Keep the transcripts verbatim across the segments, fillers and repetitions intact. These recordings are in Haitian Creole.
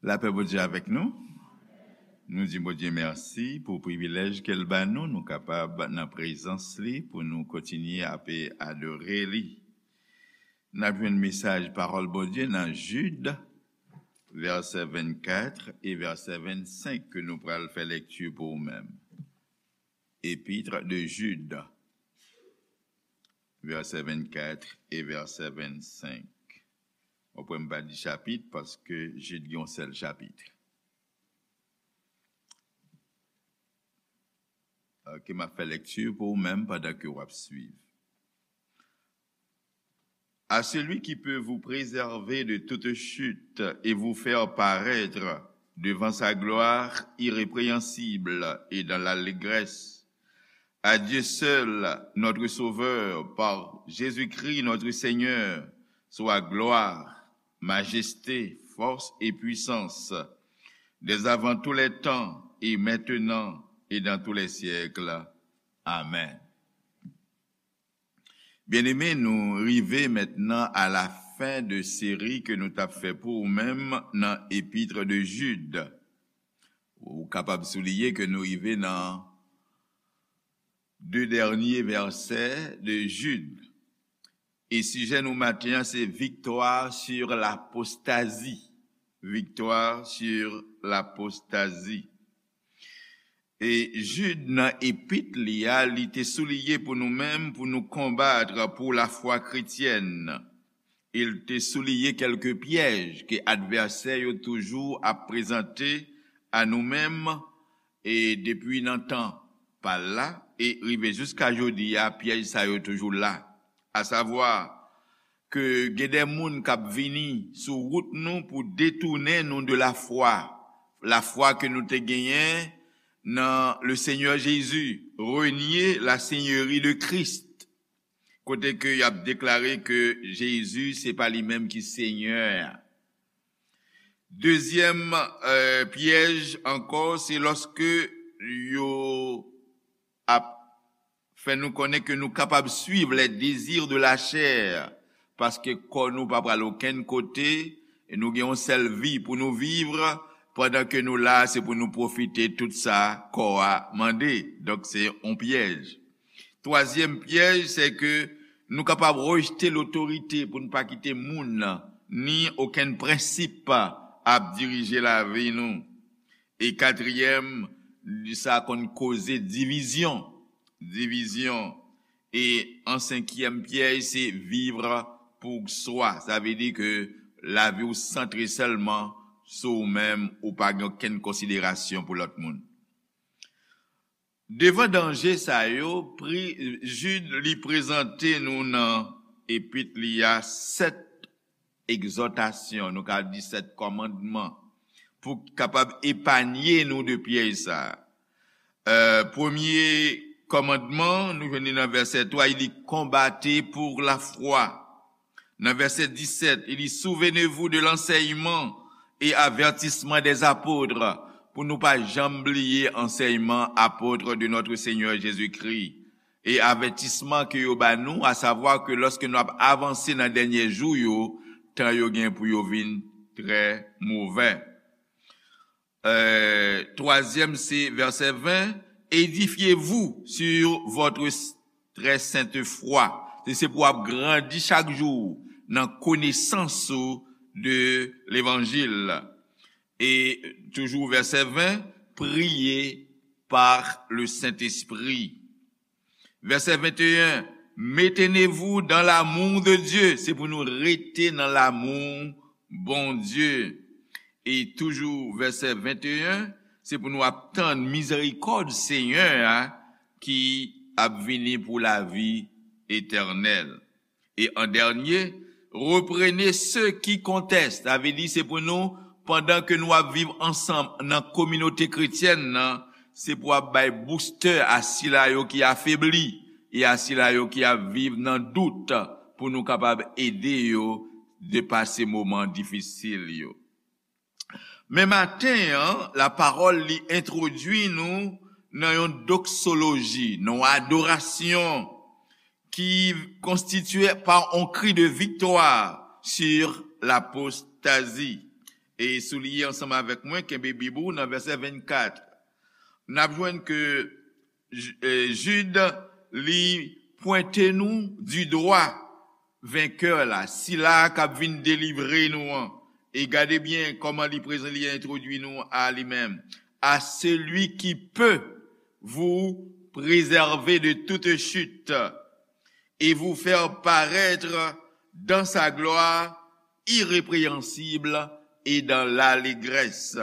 Lapè Bondye avèk nou. Nou di Bondye mèsi pou privilèj ke l ba nou, nou kapab nan prezans li pou nou kontinye ap adore li. N ap jwenn mesaj pawòl Bondye nan Jid, vèsè vennkat e vèsè vennsenk ke nou pral fè lekti pou ou menm. Épître de Jude, vèsè vennkat e vèsè vennsenk. Ou pran m pa di chapit, paske Jid gen yon sèl chapit. Ok, m ap fè lekti pou ou menm pandan ke w ap swiv. À celui qui peut vous préserver de toute chute et vous faire paraître devant sa gloire irrépréhensible et dans l'allégresse. À Dieu seul, notre Sauveur, par Jésus-Christ notre Seigneur, soit gloire, majesté, force et puissance, dès avant tous les temps et maintenant et dans tous les siècles. Amen. Byeneme, nou rive mentnan a la fen de seri ke nou t ap fè pou ou menm nan Épître de Jude. Ou kapab souliye ke nou rive nan de dènye vèsè de Jid. E sijè nou maten an se victoire sur l'apostasie. Victoire sur l'apostasie. E Jid nan epit li a, li te souliye pou nou menm, pou nou konbat pou lafwa kretyèn. E l te souliye kèlke pyèj ke advèsè yo toujou ap prezante a nou menm, e depi nan tan pa l la, e rive jiska jodi a, pyèj sa yo toujou la. Asavwa, ke gen de moun k ap vini sou wout nou pou detounen nou de lafwa, lafwa ke nou te genyen nan le Seigneur Jésus, renier la seigneurie de Christ, kote ke y ap deklare ke Jezi se pa li menm ki Senyè a. Dezyèm, euh, pyèj ankò, se lòske yo ap fè nou konnen ke nou kapab suiv les désirs de la chair, paske kò nou pa pral okenn kote, e nou gen yon sèl vi pou nou viv, pandan ke nou la, se pou nou pwofite tout sa kò a mande. Donk, se yon pyèj. Twazyèm pyèj, se ke nou kapab rejte lotorite pou nou pa kite moun ni okenn prensip ap dirije lavi nou. E katriyèm, sa konn koze divizyon. Divizyon. E an senkyèm pyèj, se vivre pour soi. Sa vle di ke lavi w santre sèlman sou ou menm, ou pa gen okenn konsiderasyon pou lòt moun. Devan danje sa yo, pri, Jid li prezante nou nan epit li a sèt egzòtasyon, nou ka di sèt kòmandman, pou kapab epanye nou de pyèj sa a. Euh, premye kòmandman, nou jwenn li nan vèsè twa, li di, combattez pour la foi. Nan vèsè disèt, li di, souvenez-vous de l'enseignement et avertissement des apôtres, pou nou pa janm bliye ansèyman apot de notre Seigneur Jésus-Christ, e avètisman ke yo ba nou, asavwa ke lòske nou ap avanse nan dènye jou yo, tan yo gen pou yo vin trè movè. Euh, twazyèm, se vèsè ven, édifiez-vous sur votre s-, très sainte foi. Se, se pou w ap grandi chak jou nan konesans ou de levanjil. E toujou vèsè ven, priez par le Saint-Esprit. Vèsè venteyen, maintenez-vous dans l'amour de Dieu. Se pou nou rete nan lanmou Bondye. E toujou vèsè venteyen, se pou nou ap tann mizerikòd Senyè a ki ap vini pou lavi etènèl. E an dènye, reprenez ceux qui contestent. Sa vle di se pou nou, pandan ke nou ap viv ansanm nan kominote kretyèn nan, se pou ap bay boustè a sila yo ki afebli e a sila yo ki ap viv nan dout, pou nou kapab ede yo depase moman difisil yo. Men maten an, lapawòl li entwodui nou nan yon doksoloji, nan yon adorasyon ki konstitye pa yon kri de viktwa sur l'apostasie. E souliye ansanm avèk mwen, kenbe Bib ou nan vèsè vennkat. N ap jwenn ke J-, e, Jid, li pwente nou di dwa venkè la, sila k ap vin delivre nou an. E gade byen kòman li prezan, li entwodui nou a li menm. À celui qui peut vous préserver de toute chute et vous faire paraître dans sa gloire irrépréhensible et dans l'allégresse.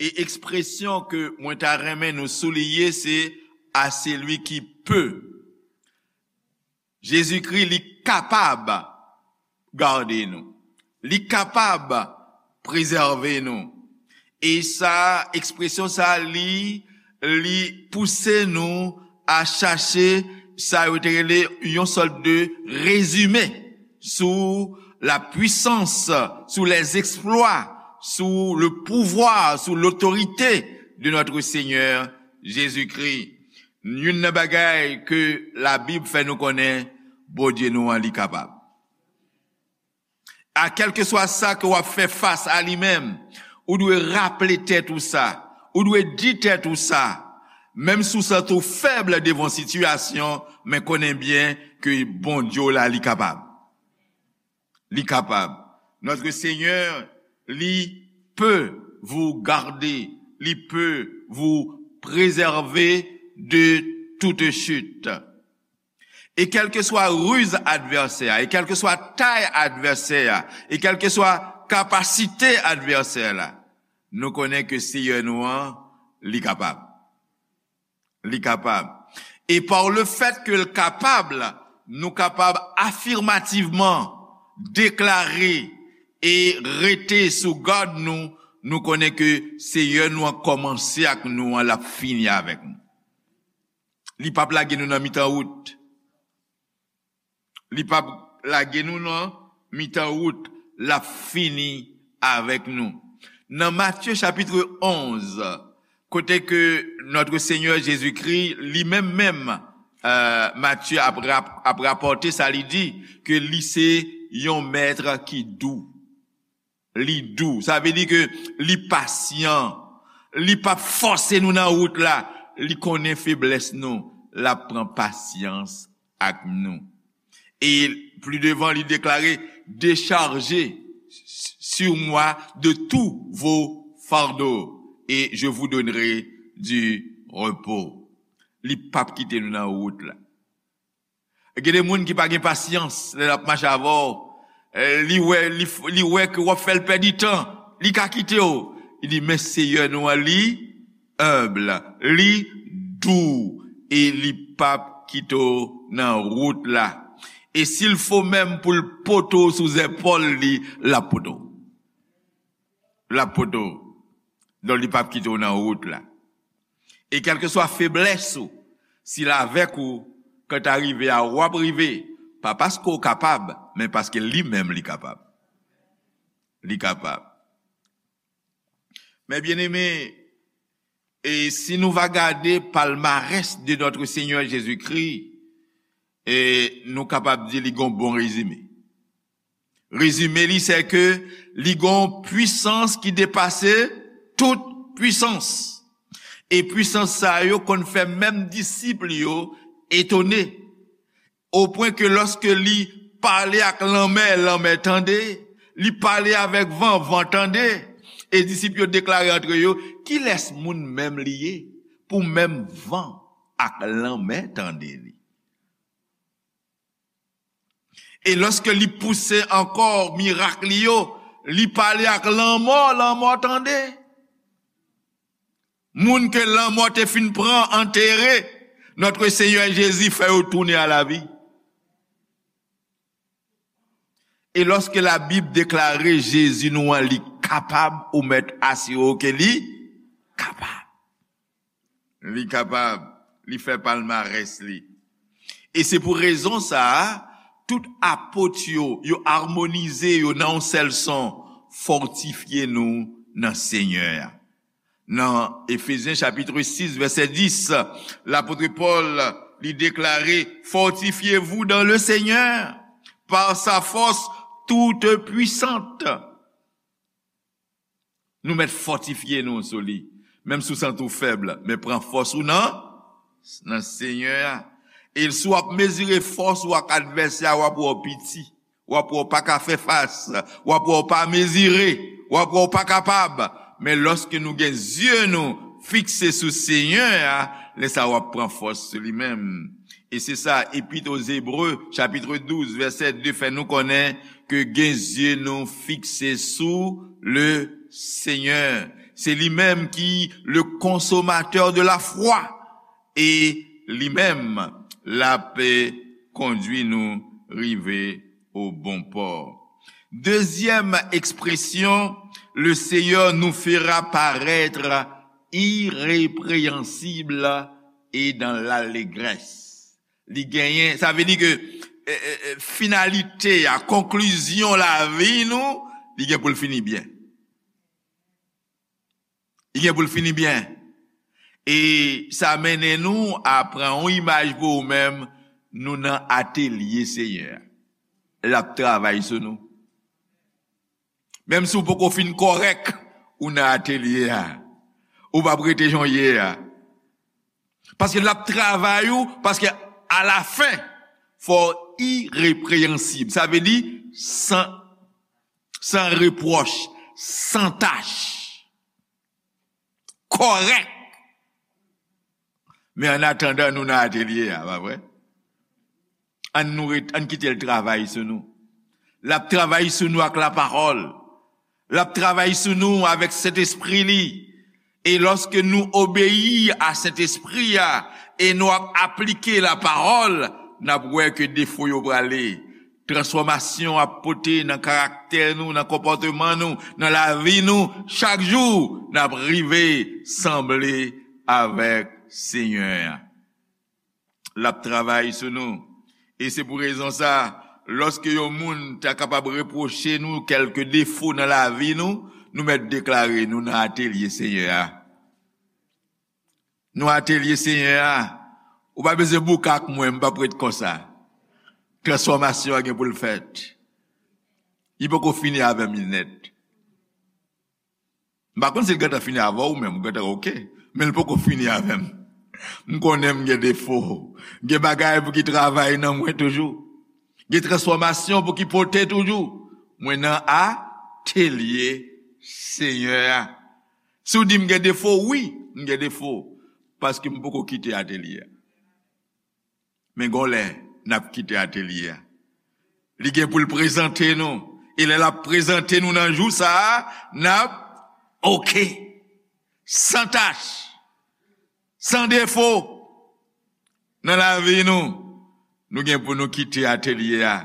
E ekspresyon ke mwen ta renmen nou souliye, se à celui qui peut. Jezikri, li kapab gade nou. Li kapab prezève nou. E sa, ekspresyon sa, li, li pouse nou a chache sa yo te rele yon sòt de rezime sou la puissance, sou les exploits, sous le pouvoir, sous l'autorité de notre Seigneur Jésus-Christ. Youn nan bagay ke Labib fè nou konnen, Bondye nou an, li kapab. A kèlkeswa sa ke w ap fè fas a li menm, ou dwe raple tèt ou sa, ou dwe di tèt ou sa, menm si w santi w fèb devan sitiyasyon, men konnen byen ke Bondye w la, li kapab. Li kapab. Notre Seigneur, li peut vous garder, li peut vous préserver de toute chute. E kèlkeswa riz advèsè a, e kèlkeswa tay advèsè a, e kèlkeswa kapasite advèsè la, nou konnen ke Seyè nou an, li kapab. Li kapab. E pa le fèt ke l kapab, nou kapab afirmativman deklare e rete sou gad nou, nou konnen ke Seyè nou an kòmanse ak nou an, l ap fini avèk nou. Li p ap lage nou nan mitan wout. Li p ap lage nou nan mitan wout, l ap fini avèk nou. Nan Matye chapit onz, kote ke notre Seigneur Jésus-Christ, li menm menm, euh, Matye ap rap-, ap rapòte sa, li di ke li se yon mèt ki dou. Li dou. Sa vle di ke li pasyan. Li p ap fòse nou nan wout la. Li konnen feblès nou. L ap pran pasyans ak nou. E pli devan, li deklare, déchargez sur moi de tous vos fardeaux et je vous donnerai du repos. Li p ap kite nou nan wout la. Gen de moun ki pa gen pasyans lè l ap mache avè w. Eh, li wè, li, li wè ke w ap fè l pèdi tan. Li ka kite w. Li di, men Seyè nou an, li enb, li dou, e li p ap kite w nan wout la. E si l fo menm pou l pote w sou zèpòl li, l ap pote w. L ap pote w. Donk, li p ap kite w nan wout la. E kèlkeswa feblès ou, si l avèk ou, kan ta rive a, w ap rive, pa paske w kapab, men paske li menm li kapab. Li kapab. Mes bien-aimés, e si nou va gade palmarès de notre Seigneur Jésus-Christ, e nou kapab di li gon bon rezime. Rezime li, se ke li gon pwisans ki depase tout pwisans. E pwisans sa yo konn fè menm disip li yo etone. O pwen ke lòske li pale ak lanmè, lanmè tande, li pale avèk van, van tande, e disip yo deklare antre yo, kilès moun menm li ye pou menm van ak lanmè tande li? E lòske li pouse ankò mirak li yo, li pale ak lanmò, lanmò tande. Moun ke lanmò te fin pran, antere, notre Seigneur Jésus fè yo tounen a la vi. E lòske Labib deklare Jezi nou an, li kapab, ou mèt asire w ke li kapab. Li kapab, li fè palmarès li. E se pou rezon sa a, tout apot yo, yo amonize yo nan yon sèl son, fòtifye nou nan Senyè a. Nan Efezyen chapit sis, vèsè dis, lapot Pòl, li deklare, fortifiez-vous dans le Seigneur, par sa force toute puissante. Nou mèt fòtifye nou sou li. Menm si w santi w fèb, men pran fòs ou nan, nan Senyè a. E si w ap mezire fòs ou ak advèsè a, w ap wè w piti. W ap wè w pa ka fè fas. W ap wè w pa mezire. W ap wè w pa kapab. Men lòske nou gen zye nou fikse sou Senyè a, lè sa a w ap pran fòs sou li menm. E se sa, Epître aux Hébreux, chapitre douze, verset deux, fè nou konnen ke gen zye nou fikse sou le Seigneur. Se li menm ki le consommateur de la foi. E li menm, l ap kondui nou rive au bon port. Deuxième expression, le Seigneur nous fera paraître irrépréhensible et dans l'allégresse. Li genyen, sa vle di ke, eh, eh, eh, finalite a, konklizyon lavi nou, li gen pou l fini byen. Li gen pou l fini byen. E sa mennen nou a pran yon imaj pou ou menm, nou nan atelye Senyè a. L ap travay sou nou. Menm si w poko fin kòrèk, ou nan atelye a. Ou p ap rete jan w ye a. Paske l ap travay ou, paske alafen, fò w ireprennsib. Sa vle di san, san repwòch, san tach, kòrèk. Men an atandan, nou nan atelye a, pa vre? Ann nou ret, ann kite l travay sou nou. L ap travay sou nou ak lapawòl. L ap travay sou nou avèk Sentespri li. E lòske nou obeyi a Sentespri a e nou ap aplike lapawòl, n ap wè ke defo yo prale. Transfòmasyon ap pote nan karaktè nou, nan konpòteman nou, nan lavi nou, chak jou, n ap rive sanble avèk Senyè a. L ap travay sou nou. E se pou rezon sa, lòske yon moun ta kapab repwoche nou kèlke defo nan lavi nou, nou mèt deklare nou nan atelye Senyè a. Nou atelye Senyè a. Ou pa bezwen bouke ak mwen, m p ap ret konsa. Transfòmasyon an gen pou l fèt. Li poko fini avè m nèt. M pa konn si l gentan fini avè w menm, ou gentan oke. Men l poko fini avè m. M konnen m gen defo. Gen bagay pou ki travay nan mwen toujou. Gen transfòmasyon pou ki pote toujou. Mwen nan atelye Senyè a. Si w di m gen defo, wi, m gen defo. Paske m poko kite atelye a. Men gon lè, n ap kite atelye a. Li gen pou l prezante nou. E lè l ap prezante nou nan jou sa a, n ap oke. San tach. San defo. Nan lavi nou, nou gen pou nou kite atelye a.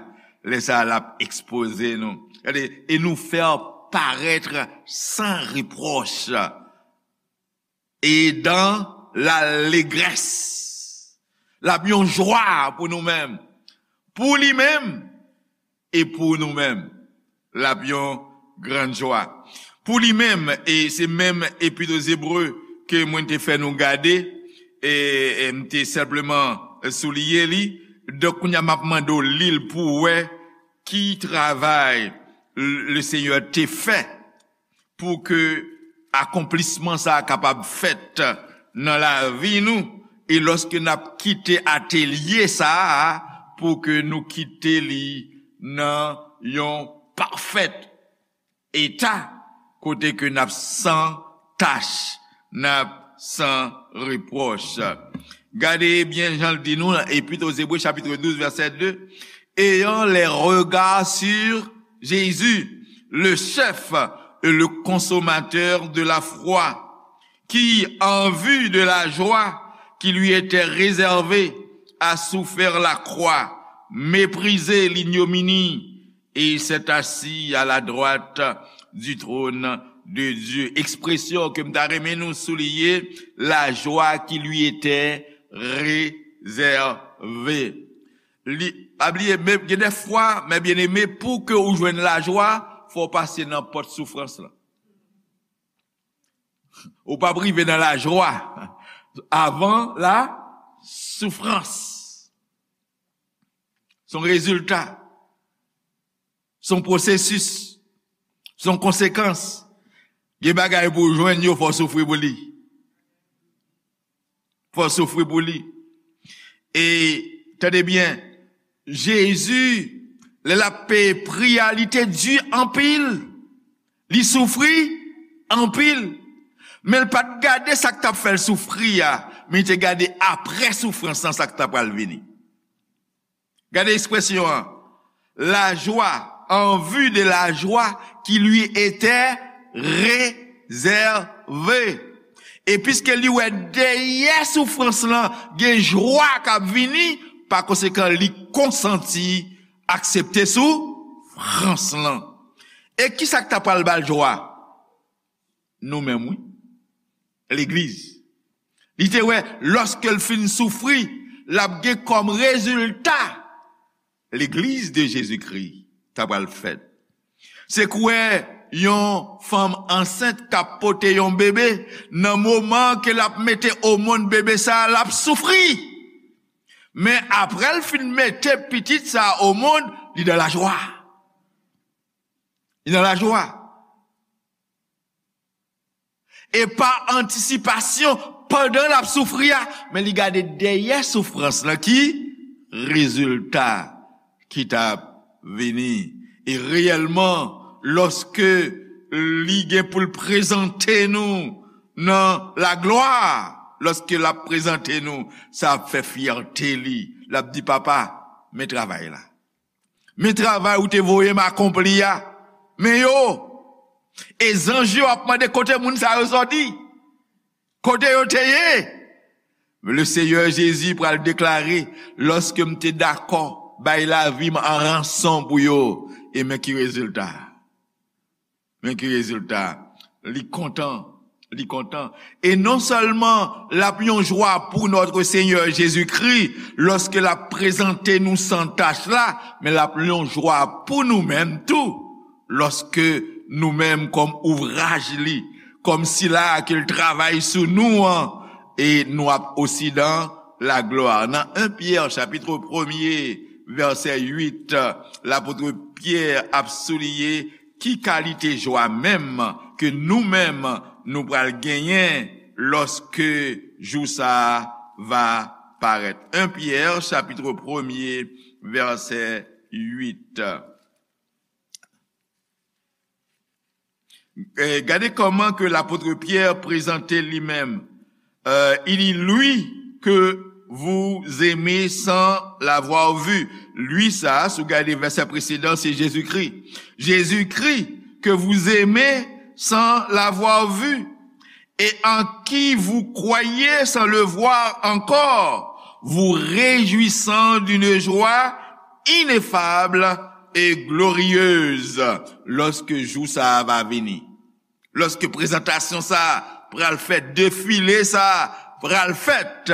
Lè sa a, l ap ekspoze nou. Gade, et nous faire paraître sans reproche et dans l'allégresse. L ap yon jwa pou nou menm. Pou li menm e pou nou menm. L ap yon grann jwa. Pou li menm, e se menm Epître aux Hébreux ke mwen te fè nou gade, e, e m te senpleman souliye li. Donk, kounye a, m ap mande w li l pou w wè ki travay le Senyè te fè pou ke akonplisman sa a kapab fèt nan lavi nou, e lòske n ap kite atelye sa a, pou ke nou kite li nan yon pafèt eta, kote ke n ap san tach, n ap san repwòch. Gade byen jan l di nou nan Epître aux Hébreux, chapitre douze, verset deux, ayant les regards sur Jésus, le chef et le consommateur de la foi, qui, en vue de la joie qui lui était réservée, a souffert la croix, méprisé l'ignominie, et il s'est assis à la droite du trône de Dieu. Ekspresyon ke m ta renmen nou souliye, la joie qui lui était réservée. Li, pa bliye, men gen de fwa, men byeneme, pou ke ou jwenn lajwa, fò w pase nan pòt soufrans lan. Ou p ap rive nan lajwa avan la soufrans. Se yon rezilta. Se yon pwosesis. Se yon konsekans. Gen bagay pou w jwenn yo, fò w soufri pou li. Fò w soufri pou li. E, tande byen, Jezi, lè l ap peye pri a, li te di anpil. Li soufri anpil. Men l pa t gade sa k t ap fè l soufri a, men li te gade apre soufrans lan, sa k ta pral vini. Gade ekspresyon an. La joie, en vue de la joie qui lui était réservée. E piske li wè dèyè soufrans lan, gen jwa k ap vini, pa konsekan, li konsanti aksepte soufrans lan. E kisa k ta pral ba l jwa? Nou menm, wi. Legliz. Li te wè, lòske l fin soufri, l ap gen kòm rezilta legliz de Jezikri ta pral fèt. Se kwè yon fanm ansent k ap pote yon bebe, nan moman ke l ap mete o monn bebe sa a, l ap soufri. Men apre l fin mete pitit sa a o monn, li nan lajwa. Li nan lajwa. E pa antisipasyon pandan l ap soufri a, men li gade dèyè soufrans lan ki rezilta ki t ap vini. E reyèlman, lòske li gen pou l prezante nou nan laglwa, lòske l ap prezante nou, sa ap fè fyète li. L ap di, "Papa, men travay la." Men travay ou te voye m akonpli a. Men yo. E zanj yo ap mande kote moun sa yo sòti. Kote yo te ye? Le Seyè Jezi pral deklare, lòske m te dakò bay lavi m an ranson pou yo, e men ki rezilta. Men ki rezilta? Li kontan. Li kontan. E non sèlman l ap yon jwa pou Notre Seigneur Jésus-Christ, lòske l ap prezante nou san tach la, men l ap yon jwa pou nou menm tou, lòske nou menm kòm ouvraj li, kòm sila ke l travay sou nou an, e nou ap osi dan laglwa. Nan en Pyè, chapit premye, vèsè uit, lapot Pyè ap souliye ki kalite jwa menm ke nou menm nou pral genyen lòske jou sa a va parèt. En Pyè, chapit premye, vèsè uit. Eh, gade kòman ke lapot Pyè prezante li menm. Euh, il dit, lui que vous aimez sans l'avoir vu. Lui sa, si w gade vèsè presedan, se Jezikri. Jezikri que vous aimez sans l'avoir vu, et en qui vous croyez sans le voir encore, vous réjouissant d'une joie ineffable et glorieuse, lòske jou sa a va vini. Lòske prezantasyon sa a pral fèt, defile sa a pral fèt,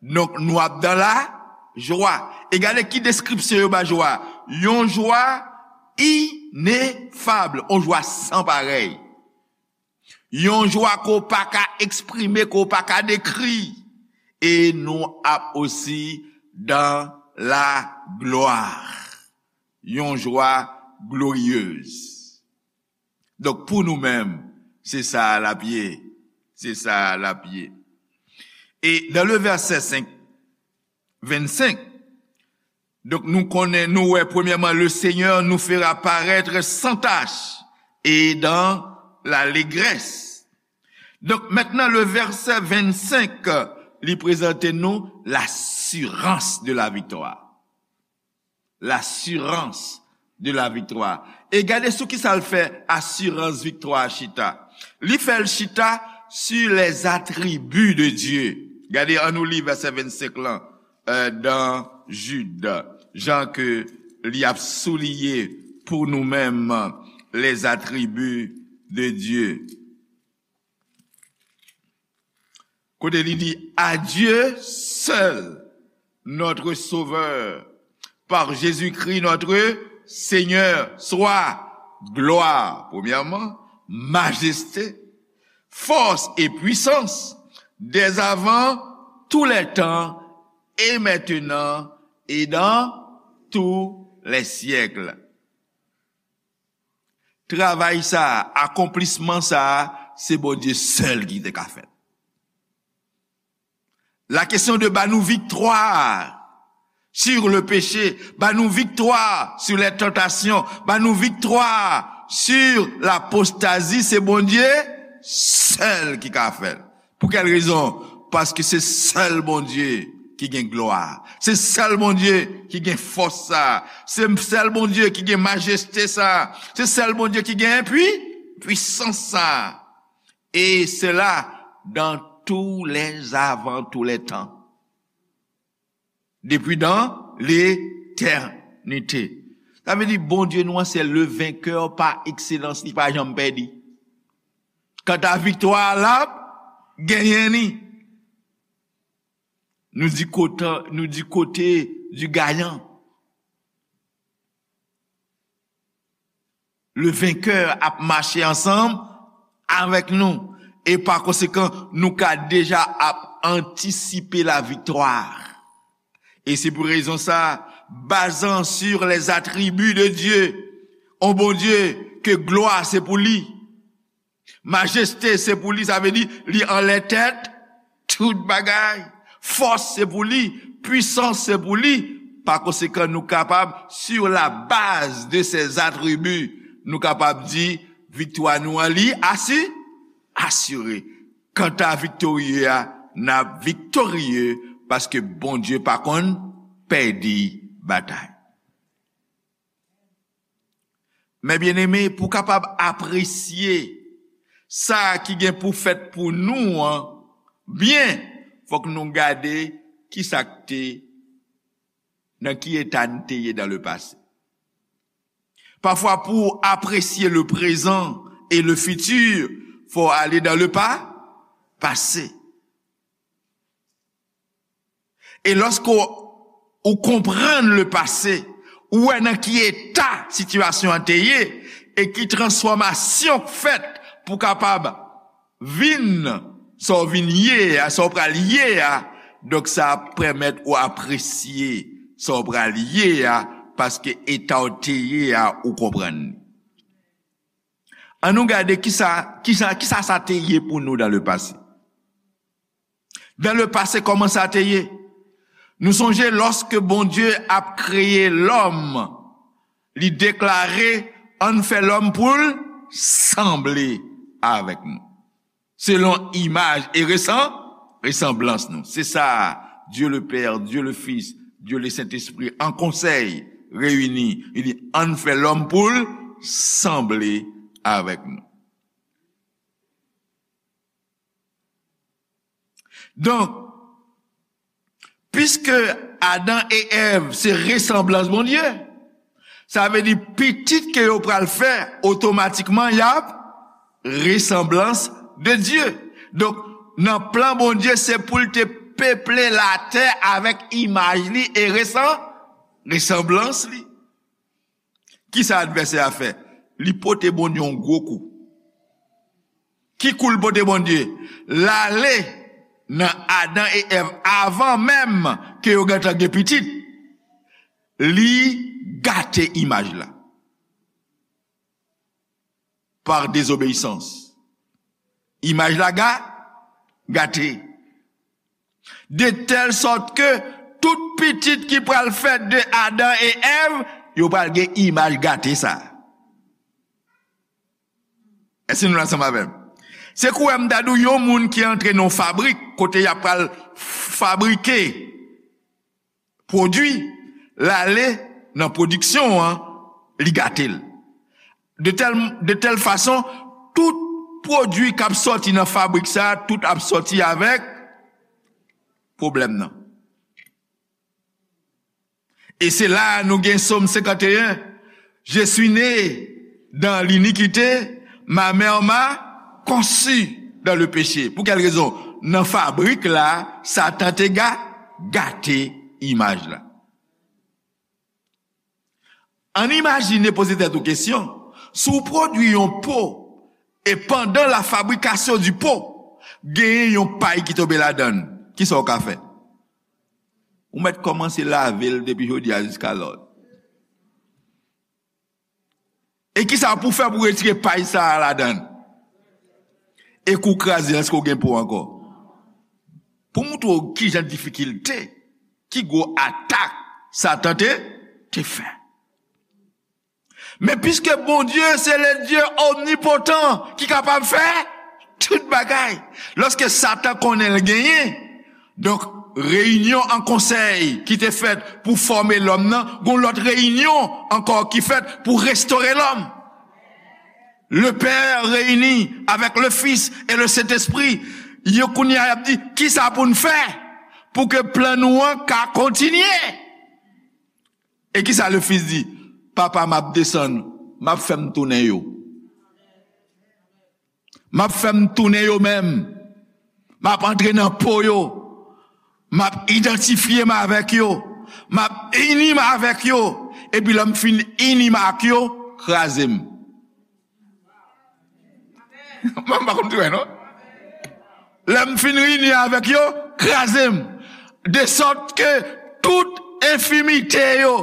donk nou ap dan lajwa. E gade ki deskripsyon yo ba jwa. Yon jwa inefab, yon jwa san parèy. Yon jwa ke w pa ka eksprime, ke w pa ka dekri. E nou ap osi dan laglwa. Yon jwa gloriyez. Donk, pou nou menm, se sa l ap ye. Se sa l ap ye. E dans le verset cinq, vingt-cinq, donk, nou konnen, nou wè, premièrement, le Seigneur nous fera paraître sans tache et dans l'allégresse. Donk, mentnan, le verset vingt-cinq, li prezante nou l'assurance de la victoire. L'assurance de la victoire. E gade sou ki sa l fè asirans viktwa a chita. Li fè l chita sur les attributs de Dieu. Gade, annou li vèsè vennsenk lan, euh, dans Jude, jan ke li ap souliye pou nou menm les attributs de Dieu. Kote li di, à Dieu seul, notre Sauveur, par Jésus-Christ notre Seigneur, soit gloire, premièrement, majesté, force et puissance, dès avant tous les temps, et maintenant, et dans tous les siècles. Travay sa a, akonplisman sa a, se Bondye sèl ki te ka fè l. La kesyon de ba nou viktwa sur le péché, ba nou viktwa sur les tentations, ba nou viktwa sur l'apostasie, se Bondye sèl ki ka fè l. Pou kèl rezon? Paske se sèl Bondye ki gen glwa. Se sèl Bondye ki gen fòs sa. Se sèl Bondye ki gen majeste sa. Se sèl Bondye ki gen pwi, pwisans sa. Et cela dans tous les avant, tous les temps. Depuis dans l'éternité. Sa vle di Bondye nou an se le vainqueur par excellence, li pa janm pèdi. Kanta viktwa a, l ap genyen li. Nou di kote, nou di kote du gayan. Le vainqueur ap mache ansanm avèk nou. E pa konsekan, nou ka deja ap antisipe la viktwa. E se pou rezon sa, bazan sur les attributs de Dieu, on Bondye ke glwa se pou li, majeste se pou li, sa vle di li anlè tèt tout bagay. Fòs se pou li, pwisans se pou li. Pa konsekan, nou kapab, sur la base de ces attributs, nou kapab di viktwa nou an li asi, asire. Kanta viktorye a, n ap viktorye paske Bondye pa konn pèdi batay. Men byeneme, pou kapab apresye sa ki gen pou fèt pou nou an byen, fòk nou gade ki sa k te, nan ki eta n te ye dans le passé. Parfois, pour apprécier le présent et le futur, faut aller dans le pa-, passé. E lòske w, ou konprann le passé, ou wè nan ki eta sitiyasyon an te ye, e ki transfòmasyon k fèt pou kapab vin sa w vin ye a, sa w pral ye a, donk sa ap pèmèt ou apresye sa w pral ye a, paske eta w te ye a, ou konprann li. Ann nou gade kisa, kisa, kisa sa te ye pou nou dans le passé. Dans le passé, kòman sa te ye? Nou sonje lòske Bondye ap kreye lòm, li deklare, ann fè lòm pou l sanble avèk nou. Selon imaj e resan-, resanblans nou. Se sa, Dieu le Père, Dieu le Fils, Dieu le Saint-Esprit, an konsèy reyini, li di, ann fè lòm pou l sanble avèk nou. Donk, piske Adan e Èv se resanblans Bondye, sa vle di pitit ke yo pral fè, otomatikman y ap resanblans de Dye. Donk, nan plan Bondye, se pou l te peple latè avèk imaj li e resan-, resanblans li. Kisa advèsè a fè? Li pote Bondye yon gwo kou. Ki kou l pote Bondye? L ale nan Adan e Èv avan menm ke yo gentan gen pitit. Li gate imaj la. Par désobéissance. Imaj la ga-, gate. De tèl sòt ke tout pitit ki pral fèt de Adan e Èv, yo pral gen imaj gate sa. Èske nou ansanm avè m? Se kouwè m ta di w yon moun ki antre nan yon fabrik, kote y ap pral fabrike pwodui, l ale nan pwodiksyon an, li gate l. De tèl, de tèl fason, tout pwodui k ap sòti nan fabrik sa a, tout ap sòti avèk pwoblèm nan. E se la a nou gen Sòm senkanteyen, Je suis né dans l'iniquité, ma mère m'a conçu dans le péché. Pou kèl rezon? Nan fabrik la, Satan te ga-, gate imaj la. Ann imajine, poze tèt ou kesyon, si w pwodui yon po, e pandan la fabrikasyon di po, genyen yon pay ki tonbe ladan l, kisa w ka fè? Ou mèt kòmanse lave l depi jodi a jiska lòd. E kisa pou fè pou retire pay sa a ladan l? E kou kraze, èske w gen po ankò? Pou montre w ki jan difikilte, ki gwo atak Satan te, te fè. Men piske Bondye se le Dye omnipotan ki kapab fè tout bagay, lòske Satan konnen l genyen, donk, reyinyon an konsèy ki te fèt pou fòme lòm nan, gon lòt reyinyon ankò ki fèt pou restore lòm. Le Père réuni avec le Fils et le Saint-Esprit, yo kounye a y ap di, kisa pou n fè pou ke plan nou an ka kontinye? E kisa le Fils di? Papa, m ap desann, m ap fè m tounen yo. M ap fè m tounen yo menm. M ap antre nan po yo. M ap idantifye m avèk yo. M ap ini m avèk yo. Epi lè m fin ini m ak yo, kraze m. Mwen pa konn tou wè, non? Lè m fin ini avèk yo, kraze m. De sòt ke tout enfimite yo,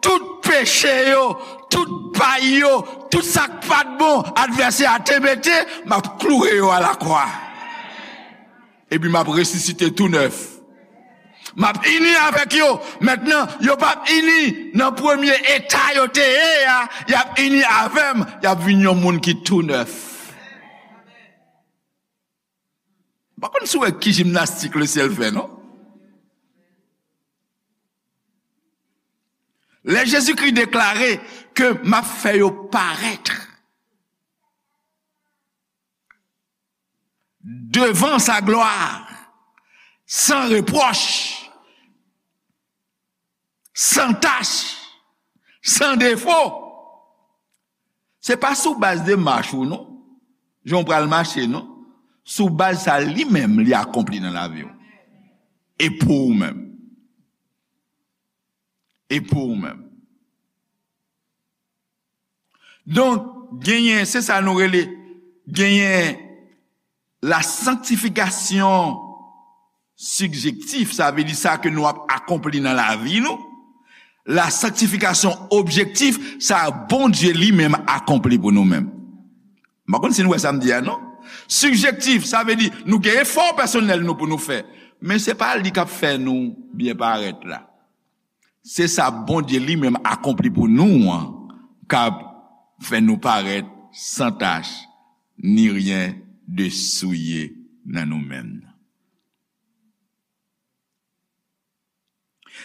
tout peche yo, tout pay yo, tout sa k pa t bon advèsè a te mete, m ap kloure yo a lakwa. Epi m ap resisite tou nèf. M ap ini avèk yo. Mentnan, yo p ap ini nan premye eta yo te ye a, y ap ini avè m, y ap vin yon moun ki tou nèf. M pa konn si w wè ki jimnastik lesyèl fè, non? Lè Jezikri deklare ke m ap fè yo parèt devan sa glwa, san repwòch, san tach, san defo. Se pa sou baz de mach ou non, jan w pral mache non, sou baz sa li menm li akonpli nan lavi w. E pou ou menm. E pou ou menm. Donk, genyen, se sa nou rele, genyen la sanctification subjective, sa vle di sa ke nou ap akonpli nan lavi nou. La sanctification objective, sa Bondye li menm akonpli pou nou menm. M pa konn si nou wè sa m di a non. Subjectif, sa vle di nou gen efò pèsonèl nou pou nou fè. Men se pa li k ap fè nou byen parèt la. Se sa Bondye li menm akonpli pou nou an k ap fè nou parèt san tach, ni ryen de souye nan nou menm.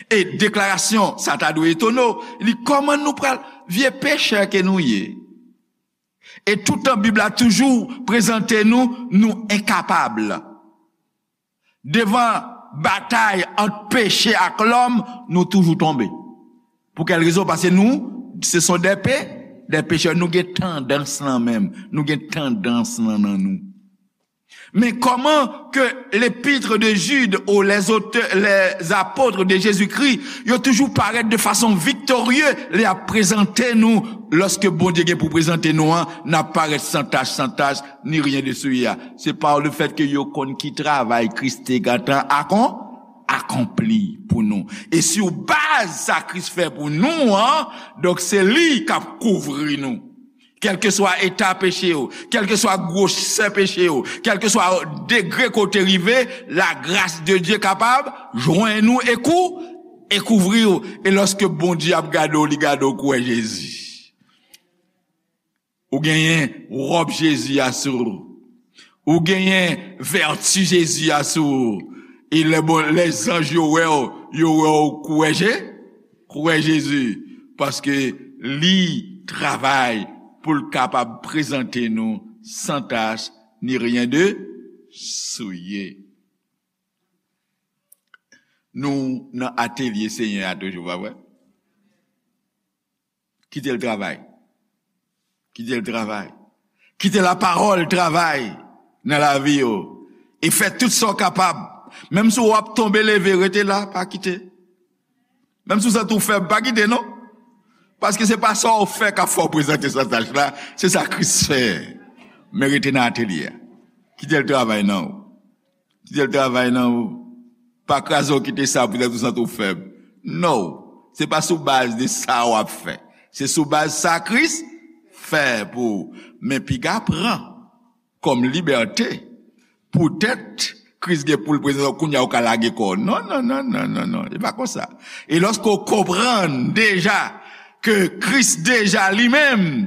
E deklarasyon sa ta dwe etone w, li kòman nou pral vye pechè ke nou ye. E toutan Bib la toujou prezante nou, nou enkapab. Devan batay ant peche ak lòm, nou toujou tonbe. Pou kèl rezon? Paske nou, ce sont des pé-, des pécheurs. Nou gen tandans lan menm. Nou gen tandans lan nan nou. Men kòman ke l'épître de Jude ou les auteurs, les apôtres de Jésus-Christ, yo toujou parèt de fason viktorye, lè y ap prezante nou, lòske Bondye gen pou prezante nou an, n ap parèt san tach, san tach, ni ryen de souye a. Se pa le fèt ke yo konn ki travay Kris te gentan akon-, akonpli pou nou. E sou baz sa Kris fè pou nou an, donk se li k ap kouvri nou. Kèlkeswa eta peche w, kèlkeswa gwosè peche w, kèlkeswa degre ke w te rive, lagras de Dye kapab jwenn ou e kou-, e kouvri w. E lòske Bondye ap gade w, li gade w kou wè Jezi. Ou genyen wòb Jezi a sou ou. Ou genyen vèti Jezi a sou ou. E lè bon, lè zanj yo wè w, yo wè w kou wè Je-, kou wè Jezi. Paske li travay pou l kapab prezante nou san tach ni ryen de souye. Nou nan atelye Senyè a toujou, pa vre? Kite l travay. Kite l travay. Kite lapawòl travay nan lavi yo. E fè tout sa w kapab. Menm si w ap tonbe, leve, rete la, pa kite. Menm si w santi w fèb, pa kite non. Paske se pa sa w fè k ap fè w prezante san tach la, se sa Kris fè. Men rete nan atelye a. Kite l travay nan ou. Kite l travay nan ou. Pa kraze w kite sa poutèt ou santi w fèb. No. Se pa sou baz de sa w ap fè. Se sou baz sa Kris fè pou, men piga pran kòm libète, poutèt Kris gen pou l prezante w, kounye a ou ka lage kò w. Non, non, non, non, non, non, e pa konsa. E lòske w konprann deja ke Kris deja li menm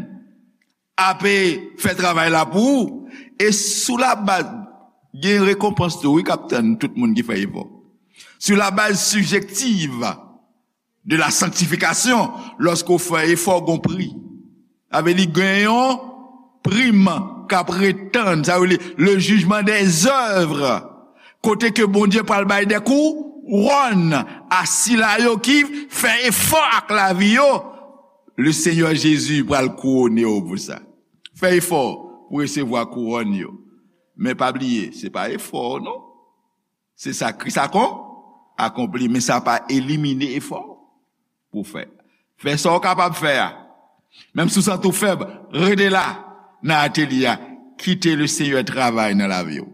ape fè travay la pou ou, e sou labaz, gen rekonpans tou, wi, k ap tann tout moun ki fè efò. Sou labaz sibjektiv de la sanctification, lòske w fè efò, gon pri. Sa vle di gen yon prim k ap ret tann, sa vle di le jugement des œuvres. Kote ke Bondye pral bay de kouwòn a sila yo ki fè efò ak lavi yo. Le Senyè Jezi pral kouwone w pou sa. Fè efò pou resevwa kouwòn yo. Men pa bliye, se pa efò w non. Se sa Kris akon, akonpli, men sa pa elimine efò w pou fè. Fè sa w kapab fè a. Menm si w santi w fèb, rete la nan atelye a. Kite le Senyè travay nan lavi w.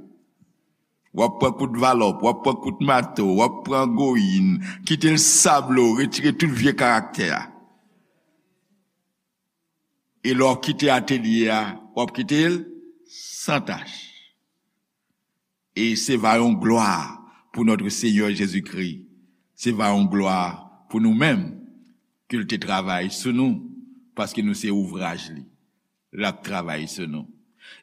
W ap pran kout valòp, w ap pran kout mato, w ap pran goyin, kite l sable w, retire tout vye karaktè a. E lè w kite atelye a, w ap kite l san tach. E se va yon glwa pou notre Seigneur Jésus-Christ. Se va yon glwa pou nou menm, ke l te travay sou nou, paske nou se ouvraj li. L ap travay sou nou.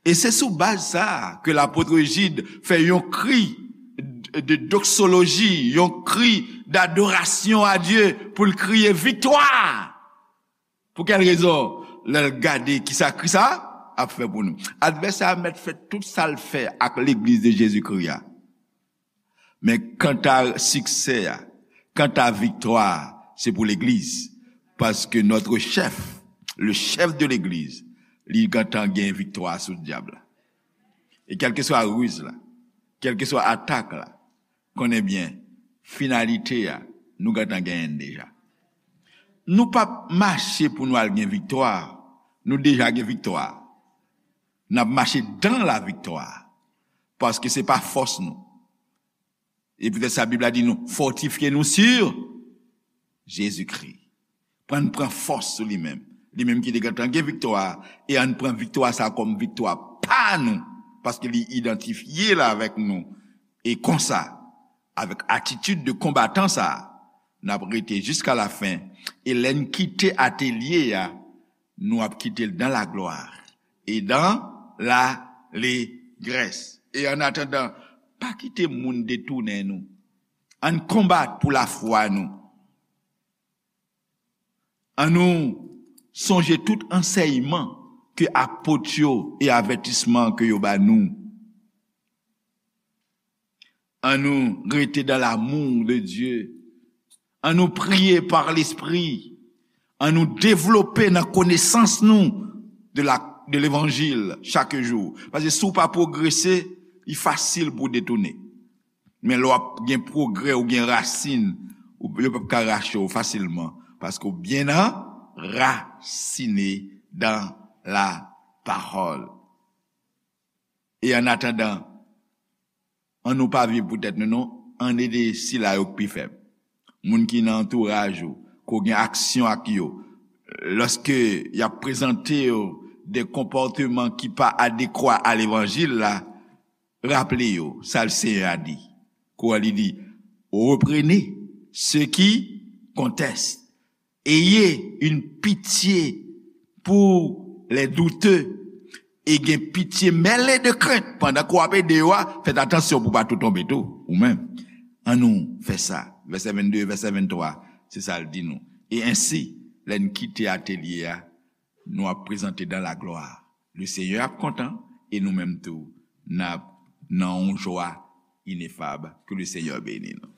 E se sou baz sa a ke lapot Jid fè yon kri de doksoloji, yon kri d'adorasyon a Dye pou l kriye viktwa. Pou kèl rezon? Lè l gade kisa Kris a ap fè pou nou. Advèsè a mèt fè tout sa l fè ak legliz de Jezikri a. Men kanta siksè a, kanta viktwa a, se pou legliz. Paske notre chef, le chef de legliz, li gentan gen viktwa sou dyab la. E kèlkeswa riz la, kèlkeswa atak la, konnen byen, finalite a, nou gentan genyen l deja. Nou p ap mache pou nou al gen viktwa, nou deja gen viktwa. N ap mache dans la victoire. Paske se pa fòs nou. E poutèt sa, Bib la di nou, fòtifye nou sur Jezikri. Pran, pran fòs sou li menm. Li menm ki te gentan gen viktwa a, e ann pran viktwa sa a kòm viktwa pa nou, paske li idantifye l avèk nou. E konsa, avèk atitid de konbatan sa a, n ap rete jiska lafen. E lè n kite atelye a, nou ap kite l dans la gloire et dans l'allégresse. E an atandan, pa kite moun detounen nou. Ann konbat pou lafwa nou. Ann nou sonje tout ansèyman ke apot yo e avètisman ke yo ba nou. Ann nou rete dans l'amour de Dieu. Ann nou priye par Lespri. Ann nou devlope nan konesans nou de la, de levanjil chak jou. Paske si w pa pwogrese, li fasil pou w detounen. Men lè w ap gen pwogrè, ou gen rasin, ou, yo p ap ka rache w fasilman. Paske w byen anrasine dans la parole. E an atandan, ann nou pa viv pou tèt nou non, ann ede sila yo k pi fèb. Moun ki nan antouraj ou, ke w gen aksyon ak yo, lòske y ap prezante yo de konpòteman ki pa adekwa a levanjil la, raple yo sa Senyè a di. Kwa li di, reprenez ceux qui contestent. Ayez une pitié pour les douteux. E gen pitye mele de krent pandan ke w ap ede yo a, fèt atansyon pou w pa tou tonbe tou, ou menm. Ann nou fè sa. Vèsè vennde, vèsè venntwa, se sa l di nou. E ensi, lè n kite atelye a, nou ap prezante dans la gloire. Le Senyè ap kontan, e nou menm tou, n ap nan yon jwa inefab. Ke le Senyè beni nou.